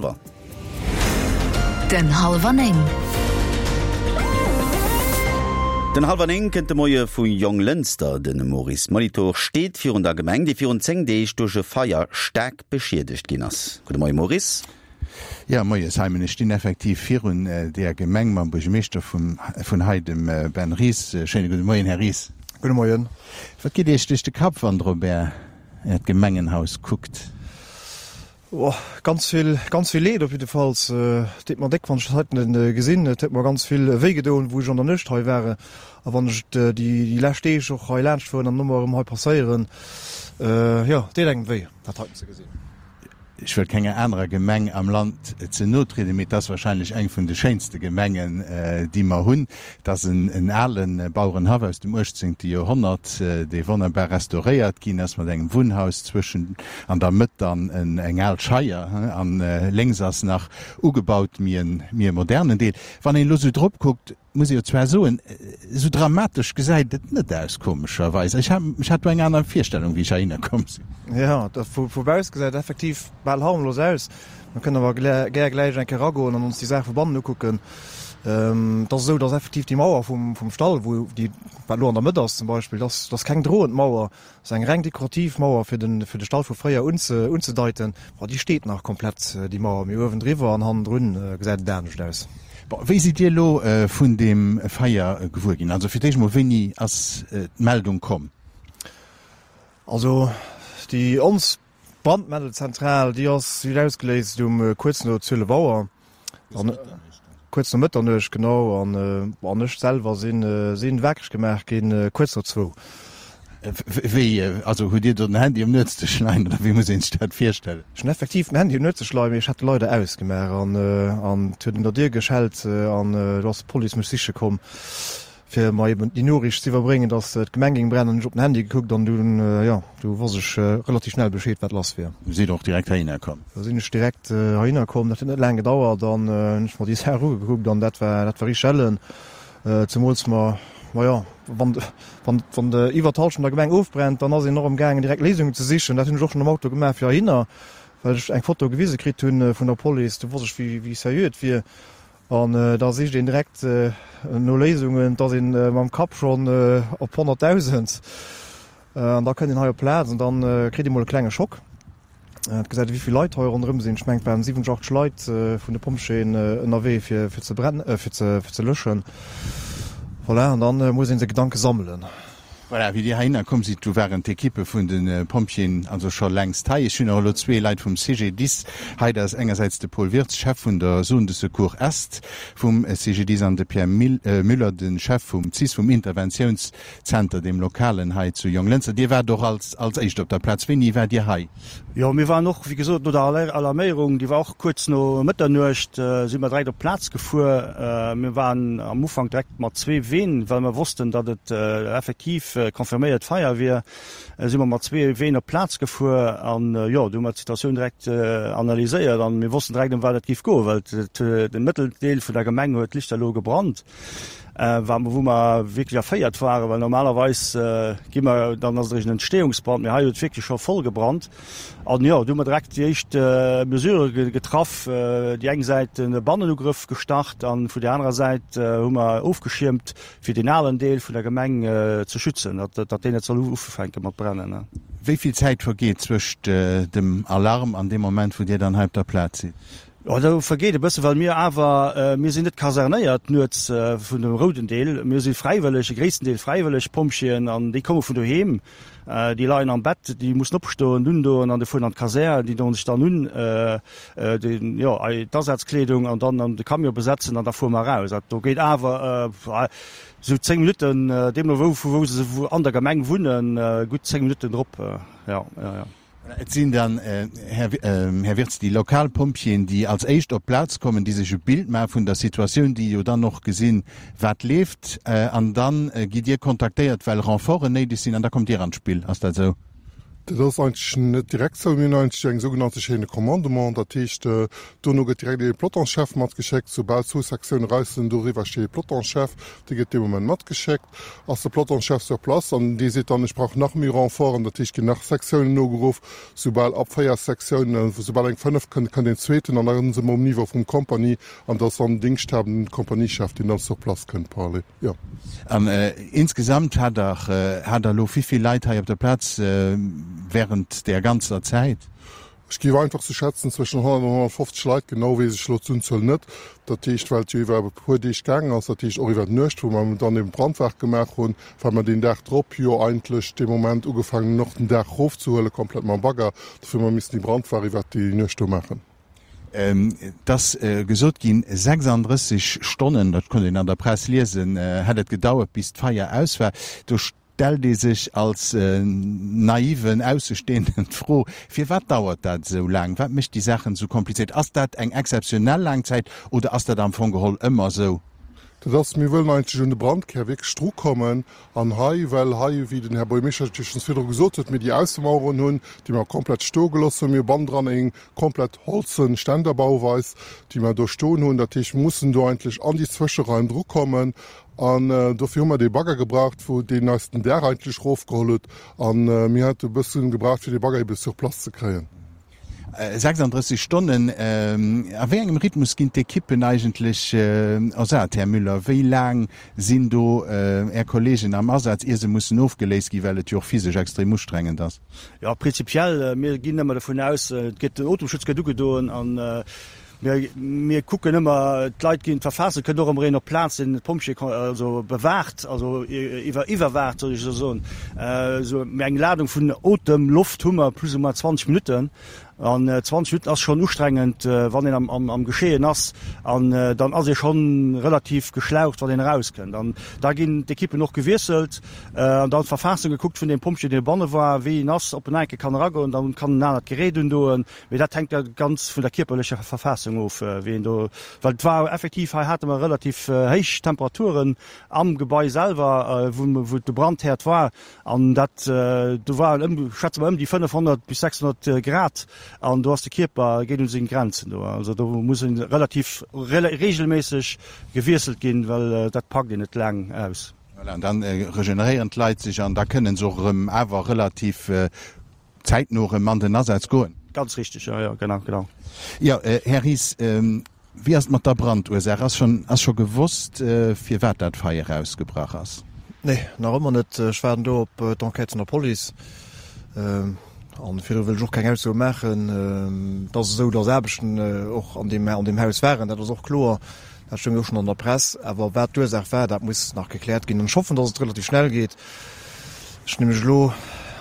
hallwer. Den hallwer 9. Den hallwer 9 kënnt de Moie vu Jonglënster. De Maurice Molitor steet virun der Gemeng, déi virun 10 Deeg duerch e Feier staark beschiedegt ginn ass. Gudde Moie Maurice. Jo, Moie Simon. Ech stinn effektiv virun deeër Gemeng mam Buergermeeschter vun hei, dem Ben Ries. Schéine gudde Moien, Här Ries. Gudde Moien. Wat geet Iech duerch de Kapp, wann Der op Äert Gemengenhaus kuckt? Oh, ganz vill, ganz vill Leed op jiddefalls. Et deet mer déck, wann ech dat heiten gesinn. Et huet mer ganz vill wéi gedoen, wou ech an der Nuecht hei war. A wann ech et déi lescht Deeg och hei laanscht fueren an ëmmer erëm hei passéieren, jo, et deet engem wéi, dat heiten ze gesinn. Ech wëll kenger anerer Gemeng am Land ze no trieden, mee et ass wahrscheinlech eng vun de schéinste Gemengen, déi mer hunn. Et ass en ale Bauerenhaff aus dem uechtzéngte Joerhonnert, dee wonnerbar restauréiert ginn ass, mat engem Wunnhaus zwëschen, an der Mëtt dann eng al Scheier, an lénks ass nach ugebaut, méi e modernen Deel. Wann een elo sou drop kuckt, Muss ee jo zwar soen, esou dramatesch gesäit et net aus, komescherweis. Ech ech hat do eng aner Virstellung, wéi ech heihinner komm sinn. Jo, dat vu vu bausse gesäit et effektiv bal harmlos aus. Mir kënnen awer gär gläich eng Kéier eragoen an ons déi Saach vu bannen ukucken. Et ass esou, dass effektiv déi Mauer vum vum Stall, wou déi wat elo an der Mëtt ass zum Beispill, dass dass keng droend Mauer, ass eng reng dekorativ Mauer fir den fir de Stall vu fréier unze unzedeiten. Bon, déi steet nach komplett, déi Mauer, mee uewendriwwer an hannendrun gesäit et anescht aus. Bon, wéi sidd Dir elo vun deem Feier gewuer ginn? Also fir d'éischt mol, wéini ass d'Meldung komm? Also déi ons Brandmeldelzentral, déi ass déi huet ausgeléist um kuerz no 12 Auer. An kuerz no Mëtternuecht, genau. An an ech selwer sinn sinn wakereg gemaach ginn kuerz no zwou. Wéi, also hutt Dir do den Handy um Nuetsdësch leien oder wéi muss een sech dat virstellen? Ech hunn effektiv den Handy um Nuetsdësch leien, mee ech hat e leider ausgemaach an an et huet un der Dier geschellt an do ass d'Police mech siche komm. fir mer eben déi Noriicht ze iwwerbréngen, dass d'Gemeng géing brennen, hunn ech op den Handy gekuckt an dunn, jo, du wosst ech relativ schnell Bescheed, wat lass wier. Du sidd och direkt heihinner komm? Da sinn ech direkt heihinner komm. Dat huet net laang gedauert an hunn ech mer déi Saach ugekuckt an dat war, dat war richteg ellen. Zemools mer, ma jo, wann, wann, wann iwwer d'Hallschent der Gemeng ofbrennt, dann ass een och amgaangen direkt Léisungen ze sichen. Dat hunn ech och schonn am Auto gemaach fir heihinner, well ech eng Foto gewise kritt hunn vun der Police. Du wosst ech, wéi, wéi seriö et wier. An da sicht een direkt no Léisungen, et ass ee mam Kapp schonn op 100.000. An da kënnt een hei op d'Plaz an da kritt ee mol e klenge Schock. Et gesäit ee wéi vill Leit hei ronderëm sinn. Ech mengen et waren 70, 80 Leit vun de Pompjeeën ënnerwee fir ze fir ze löschen. Voilà, an da muss ee seng Gedanke sammelen. Voilà, wéi Dir heihinner komm sidd, du waren d'Ekippe vun de Pompjeeën also scho längst hei. Ech hunn och elo zwee Leit vum CGDIS hei. Dat ass engersäits de Paul Wirtz, Chef vun der Zone de Secours Est vum CGDIS, an de Pierre Müller, de Chef vum cis, vum Interventiounszenter, deem lokalen hei zu Jonglënster. Dir waart och als als éischt op der Plaz. Wéini waart Dir hei? Jo, mir waren och, wéi gesot, no der Alarméierung, déi war och kuerz no Mëtternuecht, si mer direkt op d'Plaz gefuer. Mir waren am Ufank direkt mat zwee Ween, well mer wossten, datt et effektiv confirméiert Feier wier, si mer mat zwee Ween op d'Plaz gefuer. An jo, du hu mer d'Situatioun direkt analyséiert an mir wossten direkt, ëm wat et géif goen, well de Mëtteldeel vun der Gemeng huet lichterloh gebrannt. Wa wou mer wierklech erféiert waren, well normalerweis gi mer, dann ass et eréischt en Entstehungsbrand, mee hei huet et wierklech scho voll gebrannt. An jo, du hu mer direkt déi éischt Mesurë getraff, déi eng Säit e Bannenugrëff gestart an vun där anerer Säit hu mer ofgeschiermt, fir deen alen Deel vun der Gemeng ze schützen, datt datt deen net soll ufänke mat brennen. Wéi vill Zäit vergeet zwëscht dem Alarm an deem Moment, wou Dir dann hei op der Plaz sidd? Jo, do vergeet e bëssen, well mir awer, mir sinn net kasernéiert nuets vun dem rouden Deel. Mir si fräiwëlleg, e gréissten Deel fräiwëlleg Pompjeeën an déi komme vun doheem. Déi leien am Bett, déi mussen opstoen, undoen an de fueren an d'Kasär. Déi doen sech dann un, den, jo, d'Asazkleedung an dann an de Camion besetzen an da fuere mer eraus. Dat do geet awer esou 10 Minutten, deemno wou, vu wou se an der Gemeng wunnen, gutt 10 Minutten drop, jo, jo, jo. Et sinn dann, Här Wirtz, déi lokal Pompjeeën, déi als éischt op d'Plaz kommen, déi sech e Bild maache vun der Situatioun, déi jo dann och gesinn, wat leeft. An da gitt Dir kontaktéiert, well Renforten néideg sinn, an da kommt Dir an d'Spill. Ass dat esou? Dat ass eigentlech net direkt sou. Mir hunn eigentlech eng sougenannte Chaîne de commandement. Dat heescht, dono gëtt direkt ee Pelotonschef matgeschéckt. Soubal zwou Sektioune raus sinn, doriwwer steet ee Pelotonschef, dee gëtt dee Moment matgeschéckt. Ass de Pelotonschef sur place an dee seet dann, ech brauch nach méi Renforten. Dat heescht, ginn nach Sektiounen nogeruff. Soubal ab 4 Sektiounen, soubal eng 5 kënnt, kënnt een zweeten an da si mer um Niveau vum Kompanie an dat ass dann den Dingschthabenden Kompaniechef, deen dann sur place kënnt parallel. Jo. An insgesamt hat Der, hat Der elo wéivill Leit hei op der Plaz während där ganzer Zäit? Ech géif einfach sou schätzen, zwëschen 100 an 150 Leit. Genau weess ech elo d'Unzuel net. Dat heescht, well et jo iwwer e puer Deeg gaangen ass, dat heescht och iwwer d'Nuecht, wou mer dann eben d'Brandwaach gemaach hunn, well mer deen Dag drop jo eigentlech dee Moment ugefaangen hunn, och den Daach erofzehuelen, komplett mam Bagger. Dofir hu mer missen déi Brandwaach iwwer déi Nuecht do maachen. Et ass gesot ginn, 36 Stonnen, dat konnt een an der Press liesen, hätt et gedauert, bis d'Feier aus war. Do stellt ee sech als naiven Aussestehenden d'Fro, Firwat dauert dat esou laang? Wat mécht déi Saachen esou komplizéiert? Ass dat eng exzeptionell laang Zäit oder ass dat am Fong geholl ëmmer esou? Dat ass, mir wëllen eigentlech un de Brandkär wierklech drukommen. An hei, well hei, wéi den Här Buergermeeschter et jo schonns virdru gesot huet, mir déi Aussemaueren hunn, déi mer komplett stoe gelooss hunn. Mir hu bannendran eng komplett holzen Ständerbauweis, déi mer do stoen hunn. Dat heescht, mir mussen do eigentlech an déi Zwëscheraim drukommen. An dofir hu mer dee Bagger gebraucht, wou deen eis den Daach eigentlech erofgeholl huet. A mir hate e bësse gebraucht, fir dee Bagger ebe sur place ze kréien. 36 Stonnen, a wéi engem Rhythmus ginn d'Ekippen eigentlech ersat, Här Müller? Wéi laang sinn do Är Kolleegen am Asaz, ier se mussen ofgeléist ginn, well et jo och physesch extrem ustrengend ass? Jo, prinzipiell, mir ginn ëmmer dovun aus, et gëtt, den Otemschutz gëtt ugedoen an mir, mir kucken ëmmer, d'Leit ginn verfaasst, et kënnt och ëmmer een op d'Plaz, deen d'Pompjeeë also bewaacht, also iwwer, iwwerwaacht, soll ech esou soen. Esou, mee eng Ladung vun Otemloft hu mer plus ou moins 20 Minutten. An 20 Minutten ass schonn ustrengend, wann een am Geschehen ass. An dann ass ee schonn relativ geschlaucht, wann een erauskënnt. An da ginn d'Ekippen och gewiesselt an dann d'Verfaassung gekuckt vun deem Pompjee, deen dobanne war, wéi en ass, ob en enke kann eragoen. Dann kann en anert Gerät undoen. Mee dat hänkt da ganz vun der kierperlecher Verfaassung of, wéi een do, well et war effektiv, hei hate mer relativ héich Temperaturen am Gebai selwer, wou de Brandherd war. An dat, do waren ëm, schätze mer, ëm déi 500 bis 600 Grad an do ass de Kierper, geet un seng Grenzen do. Also do muss e relativ regelméisseg gewiesselt ginn, well dat packt een net laang aus. Voilà, an dann regeneréieren d'Leit sech an da kënnen se och erëm awer relativ zäitno erëm an den Asaz goen. Ganz richtig, jo, jo, genau, genau. Jo, Här Ries, wéi ass et mat der Brandursaach? Ass schonn, ass scho gewosst, firwat dat Feier ausgebrach ass? Nee, nach ëmmer net. Ech waarden do op d'Enquête vun der Police. An virdru wëll ech och keng Aussoe maachen. Et ass esou, datt Aarbechten och an deem, an deem Haus waren, dat ass och kloer. Dat stoung jo och schonn an der Press. Awer wat d'Ursaach war, dat muss nach gekläert ginn. An ech hoffen, datt et relativ schnell geet. Ech nämlech elo,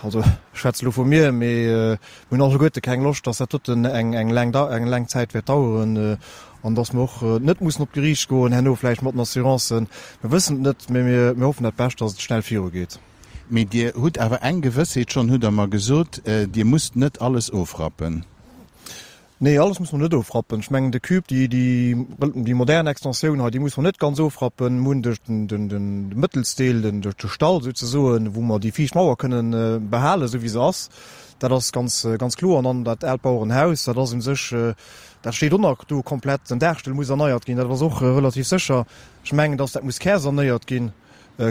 also ech schwätze elo vu mir, mee mir hunn alleguerte keng Loscht, datt dat doten eng eng laang eng laang Zäit wäert daueren an datt mer och net mussen op d'Geriicht goen herno vläicht mat den Assurancen. Mir wëssen et net, mee mir mir hoffen dat Bescht, datt et schnell virugeet. Mee Dir hutt awer eng Gewëssheet schonn, hutt Der mer gesot, Dir musst net alles ofrappen. Nee, alles muss mer net ofrappen. Ech mengen de Cube, déi, déi, déi modern Extensioun hei, déi muss mer net ganz ofrappen. Mir hunn de, den, den Mëttelsdeel, den, de Stall souzesoen, wou mer déi viischt Mauer kënnen behalen, esou wéi se ass. Dat ass ganz, ganz kloer. An dann dat aalt Bauerenhaus, dat ass u sech, dat steet och nach do komplett. Den Daachstull muss erneiert ginn, dat ass och relativ sécher. Ech mengen, dass dat muss kärsanéiert ginn.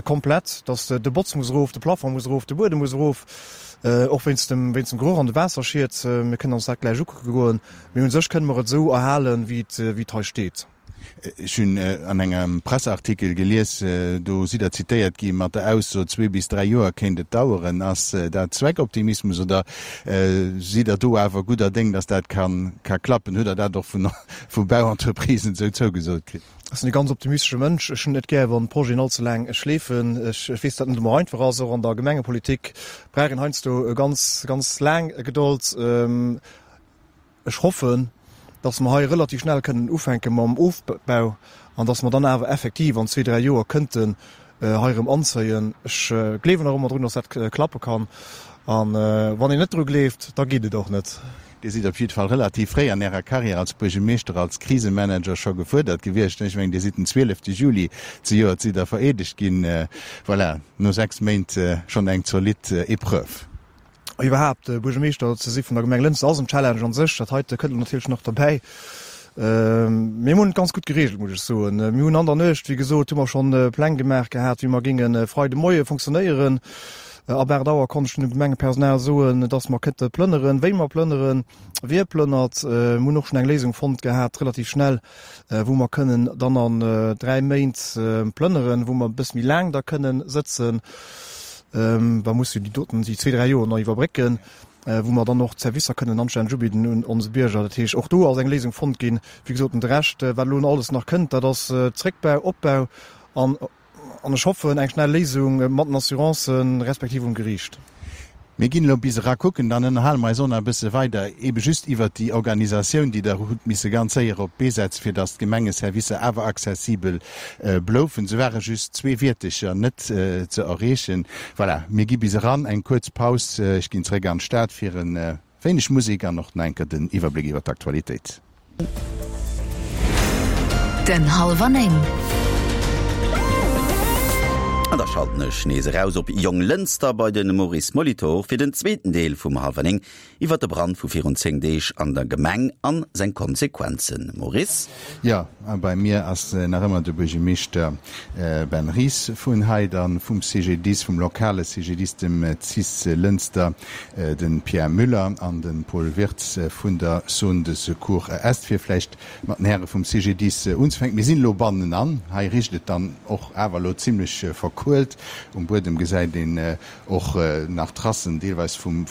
Komplett, dass de Botz muss erof, de Plafond muss erof, de Buedem muss erof, och wéinst dem wéinst dem Geroch an de Waasserschied. Mir kënnen ons dat gläich ukucke goen, mee un sech kënne mer et esou erhalen, wéi et wéi et hei steet. Ech hunn an engem Presseartikel gelies, do sidd Der zitéiert gi mat der Ausso, zwee bis dräi Joer kéint et daueren. Ass dat Zweckoptimismus oder sidd Der do awer gudder Déng, datt dat ka ka klappen? Hutt Der dat och vun vu Bauentreprisen esou zougesot kritt? Ech sinn e ganz optimistesche Mënsch. Ech hunn et net gär, wann Projeten all ze laang schleefen. Ech weess, datt et net ëmmer einfach ass. Och an der Gemengepolitik brauch een heiansdo ganz, ganz laang Gedold. Ech hoffen, datt mer hei relativ schnell kënnen ufänke mam Ofbau an datt mer dann awer effektiv an zwee, dräi Joer kënnten hei erëm anzéien. Ech gleewen nach ëmmer drun, datt dat klappe kann. A wann een net dru gleeft, da geet et och net. Dir sidd op jidde Fall relativ fréi an Ärer Karriär als Buergermeeschter, als Krisemanager scho gefuerdert gewiescht. Ech mengen, Dir sidd den 12 Juli zejoert sidd Der vereedegt ginn. Voilà, no 6 Méint schonn eng zolidd Epreuve. Iwwerhaapt Buergermeeschter ze si vun der Gemeng Lënster ass en Challenge an sech. Dat heite kënnt elo natierlech nach derbäi. Mir hunn et ganz gutt gereegelt, muss ech soen. Mir hunn an der Nuecht, wéi gesot, hu mer schonn Pläng gemaach gehat, wéi mer géinge Freide Moie funktionéieren. Ab 8 Auer konnt ech dunn dem Gemengepersonal soen, dass mer kënnte plënneren, wéi mer plënneren, wie plënnert. Mir hunn och schonn eng Léisung fonnt gehat, relativ schnell, wou mer kënnen dann an 3 Méint plënneren, wou mer e bësse méi laang da kënnen sëtzen. Da muss jo déi doten, déi zwee, dräi Joer nach iwwerbrécken, wou mer dann och d'Servicer kënnen anstänneg ubidden un onse Bierger. Dat heescht, och do ass eng Léisung fonnt ginn. Wéi gesot, de Rescht, wat elo alles nach kënnt, dat ass Zréckbau, Opbau an An ech hoffen, eng schnell Léisung mat den Assurancen, respektiv um Geriicht. Mir ginn elo bis era kucken, dann ënnerhale mer eis och nach e bësse weider, eebe just iwwert déi Organisatioun, déi Der hutt misse ganz séier op d'Bee setzen, fir datt d'Gemengeservicer awer accessibel bloufen. Se ware just zwee Wiertecher net ze erreechen. Voilà, mir gi bis eran, eng kuerz Paus. Ech ginn zeréck an d'Stad fir e Wéineg Musek an och nach enker den Iwwerbléck iwwer d'Aktualitéit. Den Halwer 9. An da schalten ech nees eraus op Jonglënster bei de Maurice Molitor fir den zweeten Deel vum Halwer 9 iwwer de Brand vu virun 10 Deeg an der Gemeng an seng Konsequenzen. Maurice? Jo, a bei mir ass nach ëmmer de Buergermeeschter Ben Ries vun hei, dann vum CGDIS, vum lokale CGDIS, dem cis Lënster, de Pierre Müller an de Paul Wirtz vun der Zone de Secours Est. Fir vläicht mat den Häre vum CGDIS unzefänken, Mir sinn elo bannenan, hei richt et dann och awer elo zimlech verkuelt. Um Buedem gesäit een och nach Tracen deelweis vum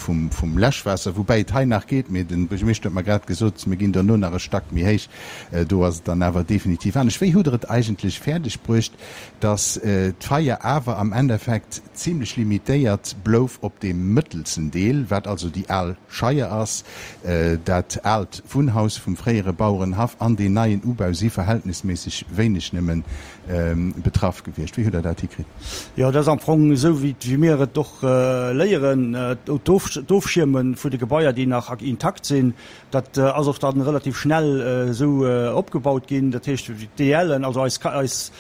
Läschwaasser, woubäi et hei nach geet, mee de Buergermeeschter huet mer grad gesot, mir ginn dono nach e Stack méi héich, do ass et dann awer definitiv anescht. Wéi hutt Der et eigentlech fäerdeg bruecht, datt d'Feier awer am Endeffekt zimlech limitéiert blouf op deem mëttelsten Deel, wat also déi al Scheier ass, dat aalt Wunnhaus vum fréiere Bauerenhaff an deen neien Ubau si verhältnisméisseg wéineg nëmmen betraff gewiescht. Wéi hutt Der dat hikritt? Jo, dat ass am Fong esou, wéi mir et och léieren, d'Ofschierme vun de Gebaier, déi nach intakt sinn, dat ass och dann relativ schnell esou opgebaut ginn. Dat heescht, d'DLen, also eis eis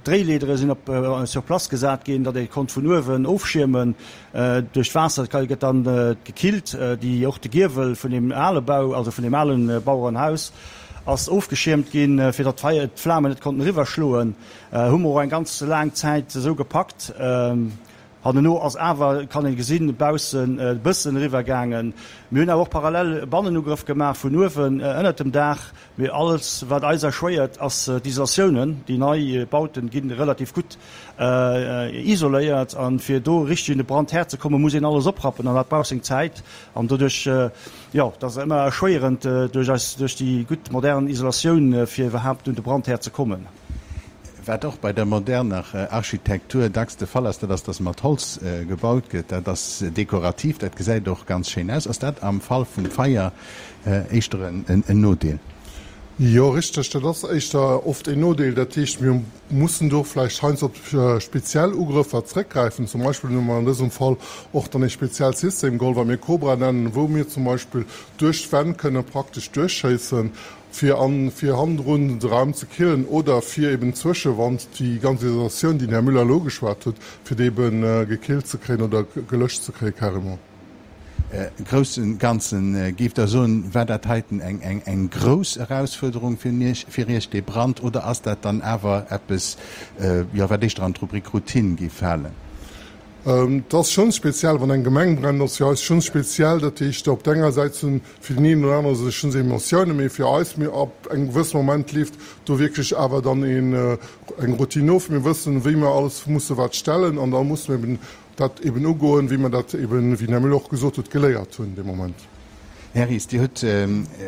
Dréileedere sinn op sur place gesat ginn, datt ee konnt vun uewen ofschiermen. Duerch d'Waasser gëtt dann gekillt. Déi och de Giewel vun deem ale Bau, also vun deem ale Bauerenhaus ass ofgeschiermt ginn, fir datt d'Flamen net konnten eriwwer schloen. Hu mer och eng ganz laang Zäit esou gepackt. Hanneno ass awer, kann een gesinn, baussen e bëssen eriwwer gaangen. Mir hunn awer och parallel Bannenugrëff gemaach vun uewen ënnert dem Daach. Mee alles wat eis erschwéiert ass d'Isolatiounen. Déi nei Bauten ginn relativ gutt isoléiert an fir do richteg un de Brandherd ze kommen, muss een alles oprappen an dat brauch seng Zäit an doduerch, jo, dat ass ëmmer erschwéierend duerch eis, duerch déi gutt modern Isolatioun fir iwwerhaapt un de Brandherd ze kommen. Wat och bei der moderner Architektur dacks de Fall ass, dat ass, dass mat Holz gebaut gëtt. Dat ass dekorativ, dat gesäit och ganz schéin aus. Ass dat am Fall vum Feier éischter en Nodeel? Jo, richteg, dat ass éischter oft en Nodeel. Dat heescht, mir mussen do vläicht heiansdo op speziell Ugrëffer zréckgräifen. Zum Beispill hu mer an dësem Fall och dann e speziellt System geholl, wat mir Cobra nennen, wou mir zum Beispill duerch d'Wänn kënne praktesch duerchschéissen, fir an fir hannendrun de Raum ze killen oder fir eben d'Zwëschewand, déi ganz Isolatioun, déi den Här Müller elo ugeschwat huet, fir déi eben gekillt ze kréien oder gelöscht ze kréie carrément. Groussen Ganzen, géift Der soen, war dat heiten eng eng eng grouss Erausfuerderung fir Iech, fir Iech dee Brand, oder ass dat dann awer eppes, jo, wat éischter an d'Rubrik Routine géif falen? Et ass schonn speziell, wann eng Gemeng brennt, ass fir eis schonn speziell. Dat heescht, op der enger Säit sinn fir den een oder anere sech schonns Emotiounen, mee fir eis, mir ab engem gewësse Moment leeft do wierklech awer dann een eng Routine of. Mir wëssen, wéi mer alles musse wat stellen an da musse mir eben dat eben ugoen, wéi mer dat eben, wéi den Här Müller och gesot huet, geléiert hunn dee Moment. Här Ries, Dir hutt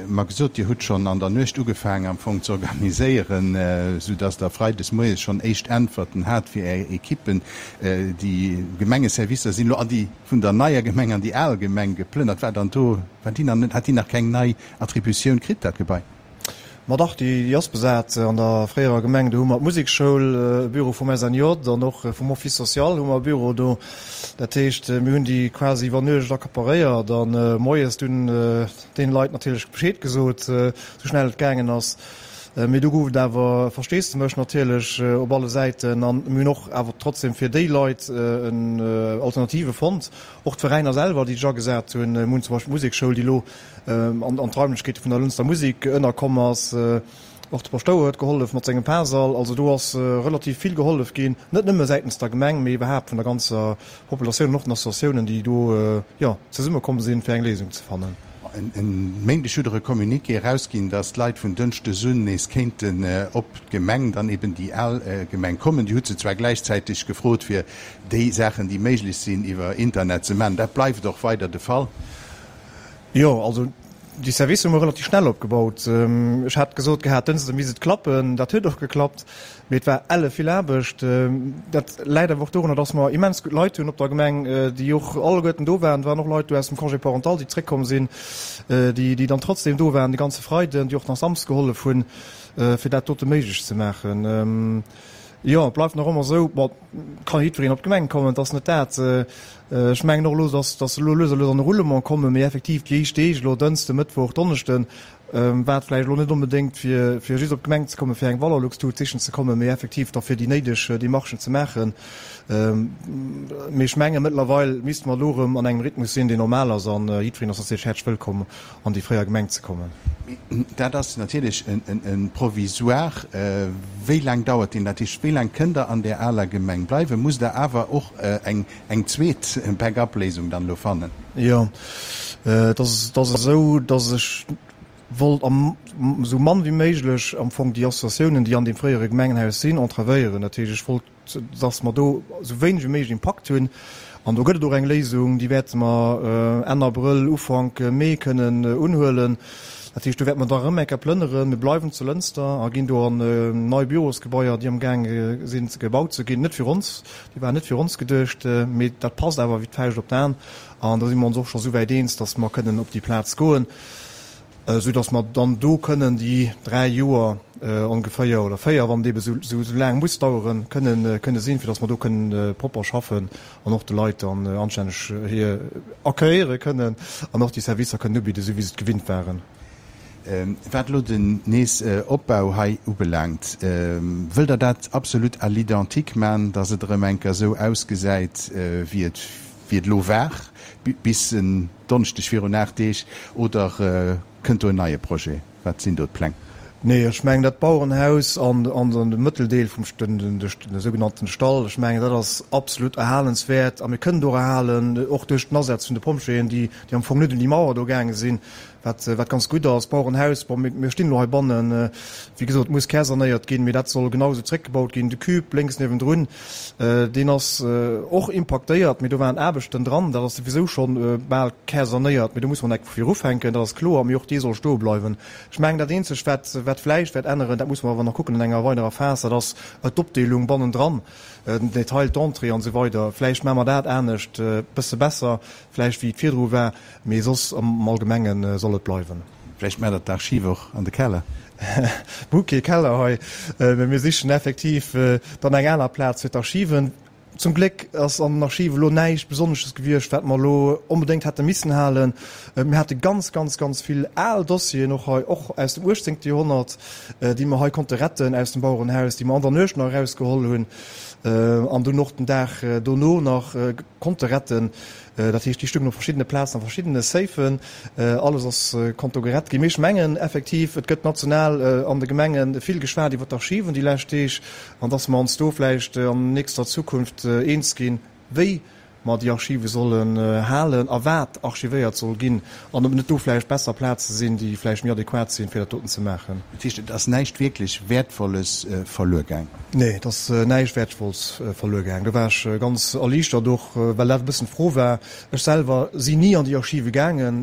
mer gesot, Dir hutt schonn an der Nuecht ugefaangen am Fong ze organiséieren, soudass Der freides moies schonn éischt Äntwerten hat fir Är Ekippen. Déi Gemengeservicer sinn elo an déi vun der neier Gemeng an déi al Gemeng geplënnert. War dann do, war déi nach net, hat déi nach keng nei Attributioun kritt, dat Gebai? Ma dach, déi ass besat. An der fréierer Gemeng, do hu mer d'Musekschoul, e Büro vum SNJ an och vum Office social hu mer e Büro do. Dat heescht, mir hunn déi quasi iwwer Nuecht accaparéiert a moies dunn deene Leit natierlech Bescheed gesot, esou schnell et gaangen ass. Mee do gouf et awer Versteesdemech natierlech op alle Säiten an mir hunn och awer trotzdem fir déi Leit en Alternative fonnt. Och d'Veräiner selwer, déi sech agesat hunn. Mir hunn zum Beispill d'Musekschoul, déi elo an d'Raimlechkeete vun der Lënster Musek ënnerkomm ass. Och de Paschtouer huet gehollef mat sengem Parsall. Also do ass relativ vill gehollef ginn, net nëmme säitens der Gemeng, mee iwwerhaapt vun der ganzer Populatioun an och den Associatiounen, déi do, jo, zesummekomm sinn, fir eng Léisung ze fannen. E Méindeg hutt Der e Communiqué erausginn, datt d'Leit vun Dënschdes un nees kéinten op d'Gemeng, dann eben déi al Gemeng, kommen. Dir hutt se zwar gläichzäiteg gefrot, fir déi Saachen, déi méiglech sinn, iwwer Internet ze maachen. Dat bleift och weider de Fall? Jo, also déi Servicer hu mer relativ schnell opgebaut. Ech hat gesot gehat, Dënschde misst et klappen. Dat huet och geklappt, mee et war elle vill Aarbecht. Dat läit awer och dorunner, dass mer immens gutt Leit hunn op der Gemeng, déi och alleguerten do waren. Et waren och Leit do aus dem Congé parental, déi zréckkomm sinn, déi déi dann trotzdem do waren de ganze Freiden, déi och nach Samsdes gehollef hunn, fir dat dote méiglech ze maachen. Jo, et bleift nach ëmmer esou, bon, et ka jiddwereen op d'Gemeng kommen, et ass net dat. Ech mengen och elo, dass dass se elo lues a lues an e Roulement kommen, mee effektiv déi éischt Deeg elo, Dënschde, Mëttwoch, Donneschden, war et vläicht elo net onbedéngt fir fir just op d'Gemeng ze kommen, fir eng Valorlux-Tut sichen ze kommen, mee effektiv da fir déi néideg Demarchen ze maachen. Mee ech menge mëttlerweil misste mer elo erëm an engem Rhythmus sinn, deen normal ass, an jiddwereen ass natierlech häerzlech wëllkomm an déi fréier Gemeng ze kommen. Dat ass natierlech e Provisoire. Wéi laang dauert deen? Dat heescht, wéi laang kënnt Der an där aler Gemeng bleiwen? Musst Der awer och eng zweet Back-up-Léisung dann elo fannen? Jo, et ass esou, datt ech wollt esou mann wéi méiglech am Fong déi Associatiounen, déi an deem fréiere Gemengenhaus sinn, entravéieren. Dat heescht, ech wollt dass mer do esou wéineg wéi méiglech Impakt hunn. An do gëtt et och eng Léisung, déi wäerte mer Enn Abrëll, Ufank Mee kënnen unhuelen. Dat heescht, do wäerte mer da erëm eng Kéier plënneren. Mir bleiwen zu Lënster a ginn do an nei Bürosgebaier, déi amgaange sinn gebaut ze ginn. Net fir ons, déi waren net fir ons geduecht, mee dat passt awer wéi d'Fauscht op d'An. An do si mer ons och scho souwäit eens, dass mer kënnen op déi Plaz goen. Esou datt mer dann do kënnen déi 3 Joer ongeféier, oder 4, wann et ebe sou laang muss daueren, kënnen kënne sinn, fir datt mer do kënnen propper schaffen an och de Leit dann anstänneg hir accueilliere kënnen an och déi Servicer kënnen ubidden, esou wéi se et gewinnt waren. Wat elo den Nees-Opbau hei ubelaangt, wëllt Der dat absolut à l'identique man, datt et erëm eng Kéier esou ausgesäit, wéi et wéi et elo war bis en Donneschdeg virun 8 Deeg, oder kënnt do en neie Projet? Wat sinn do d'Pläng? Nee, ech mengen dat Bauerenhaus an de Mëtteldeel vum de sougenannten Stall, ech mengen dat ass absolut erhalenswäert a mir kënnen et och erhalen, och duerch den Asaz vun de Pompjeeën, déi am Fong net un déi Mauer do gaange sinn. Wat, wat ganz gutt ass, Bauerenhaus, bon, mir, mir stinn elo heibannen, wéi gesot, muss kärsanéiert ginn, mee dat soll genau esou zréckgebaut ginn. De Cube lénks niewendrun, deen ass och impaktéiert, mee do waren Aarbechten dran, dat ass souwisou schonn bal kärsanéiert, mee do muss mer nach vu vir ufänken, dat ass kloer, mee och dee soll stoe bleiwen. Ech mengen, dat Eenzegt, wat, wat vläicht wäert änneren, dat muss mer awer nach kucken an enger weiderer Phas, dat ass d'Opdeelung bannendran, den Detail d'entrée an esou weider. Vläicht maache mer dat anescht, e bësse besser vläicht, wéi et virdru war. Mee soss am Allgemenge soll et bleiwen. Vläicht maacht der d'Archiv och an de Keller? Mir hu kee Keller hei, mee mir sichen effektiv dann eng aner Plaz fir d'Archiven. Zum Gléck ass an den Archive elo näischt Besonnesches gewiescht, wat mer elo onbedéngt hätte missen halen. Mir hate ganz, ganz, ganz vill al Dossieren och hei, och aus dem uechtzéngte Joerhonnert, déi mer hei konnte retten aus dem Bauerenhaus, déi mer an der Nuecht nach erausgeholl hunn an dunn och den Dag dono nach konnte retten. Dat heescht, déi stungen op verschiddene Plazen a verschiddene Safen. Alles ass konnt do gerett ginn. Mee ech mengen effektiv, et gëtt national an de Gemenge vill geschwat iwwer d'Archiven déi lescht Deeg an dass mer ons do vläicht an nächster Zukunft eens ginn, wéi mer déi Archive sollen halen a wat archivéiert soll ginn an ob net do vläicht besser Plaze sinn, déi vläicht méi adequat sinn, fir dat doten ze maachen. Dat heescht, et ass näischt wierklech Wäertvolles verluer gaang? Nee, et ass näischt Wäertvolles verluer gaang. Do war ech ganz erliichtert och, well dat e bëssen d'Fro war. Ech selwer sinn ni an déi Archive gaangen,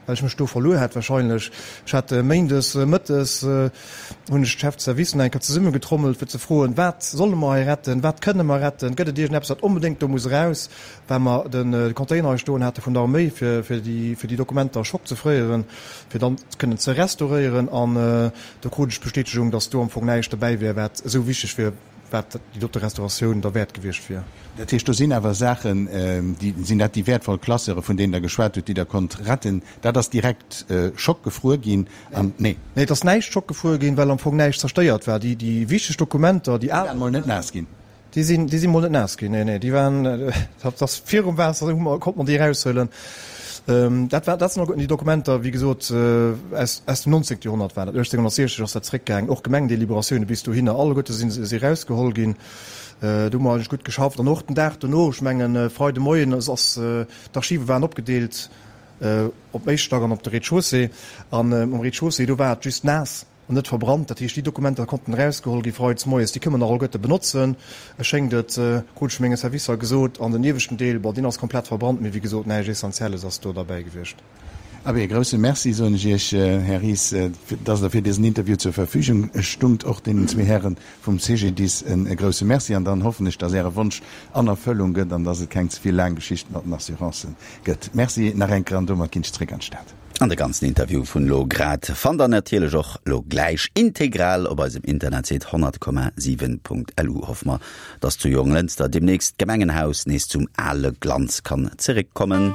well ech mech do verluer hätt wahrscheinlech. Ech hat méindes mëttes hunn ech d'Chef de service nach eng Kéier zesummegetrommelt, fir ze froen, Wat solle mer hei retten? Wat kënne mer retten? Gëtt et iergendeppes, wat onbedéngt do muss eraus? Well mer de Container hei stoen hate vun der Arméi, fir fir déi fir déi Dokumenter Schock ze fréieren, fir dann kënnen ze restauréieren. An do krut ech d'Bestätegung, datt do am Fong näischt dobäi wär, wat esou wichteg wier. wat déi dote Restauratioun derwäert gewiescht wier. Dat heescht, do sinn awer Saachen, déi, sinn dat déi wäertvoll Classeure, vun deenen Der geschwat hutt, déi Der konnt retten? Dat ass direkt schockgefruer ginn an, nee? Nee, et ass näischt schockgefruer ginn, well am Fong näischt zerstéiert war. Déi, déi wichteg Dokumenter, déi al. Déi waren mol net naass ginn. Déi sinn, déi si mol net naass ginn, nee, nee, déi waren, dat ass virum Waasser, hu mer, konnte mer déi eraushuelen. Dat war, dat sinn och déi Dokumenter, wéi gesot, aus, aus dem 19. Joerhonnert war dat, 1860 ass dat zréckgaangen, och Gemengdeliberatioune bis dohinner, alleguerte sinn se erausgeholl ginn. Do hu mer eigentlech gutt geschafft. An och den Dag dono, ech mengen Freide Moien, ass, ass, d'Archive waren opgedeelt op dem éischte Stack an op de Rez-de-chaussée. An um Rez-de-chaussée, do war et just naass. An net verbrannt. Dat heescht, déi Dokumenter konnten erausgeholl gi freides moies. Déi kënne mer nach alleguerte benotzen, schéngt et, krut ech vu menge Servicer gesot. An den ieweschten Deel, bon, deen ass komplett verbrannt, mee wéi gesot, näischt Essentielles ass do derbäi gewiescht. Abee, e grousse Merci soen ech Iech, Här Ries, dass Der fir dësen Interview zur Verfügung stungt. Och deenen zwee Häre vum CGDIS e grousse Merci. An dann hoffen ech, dass Äre Wonsch an Erfëllung gëtt an dass et keng ze vill laang Geschicht mat den Assurancen gëtt. Merci nach eng Kéier an domat ginn ech zréck an d'Stad. An de ganzen Interview vun lo grad fannt der natierlech och lo gläich integral op eisem Internetsite 100,7.lu. Hoffe mer, dass zu Jonglënster demnächst d'Gemengenhaus nees zum ale Glanz kann zeréckkommen.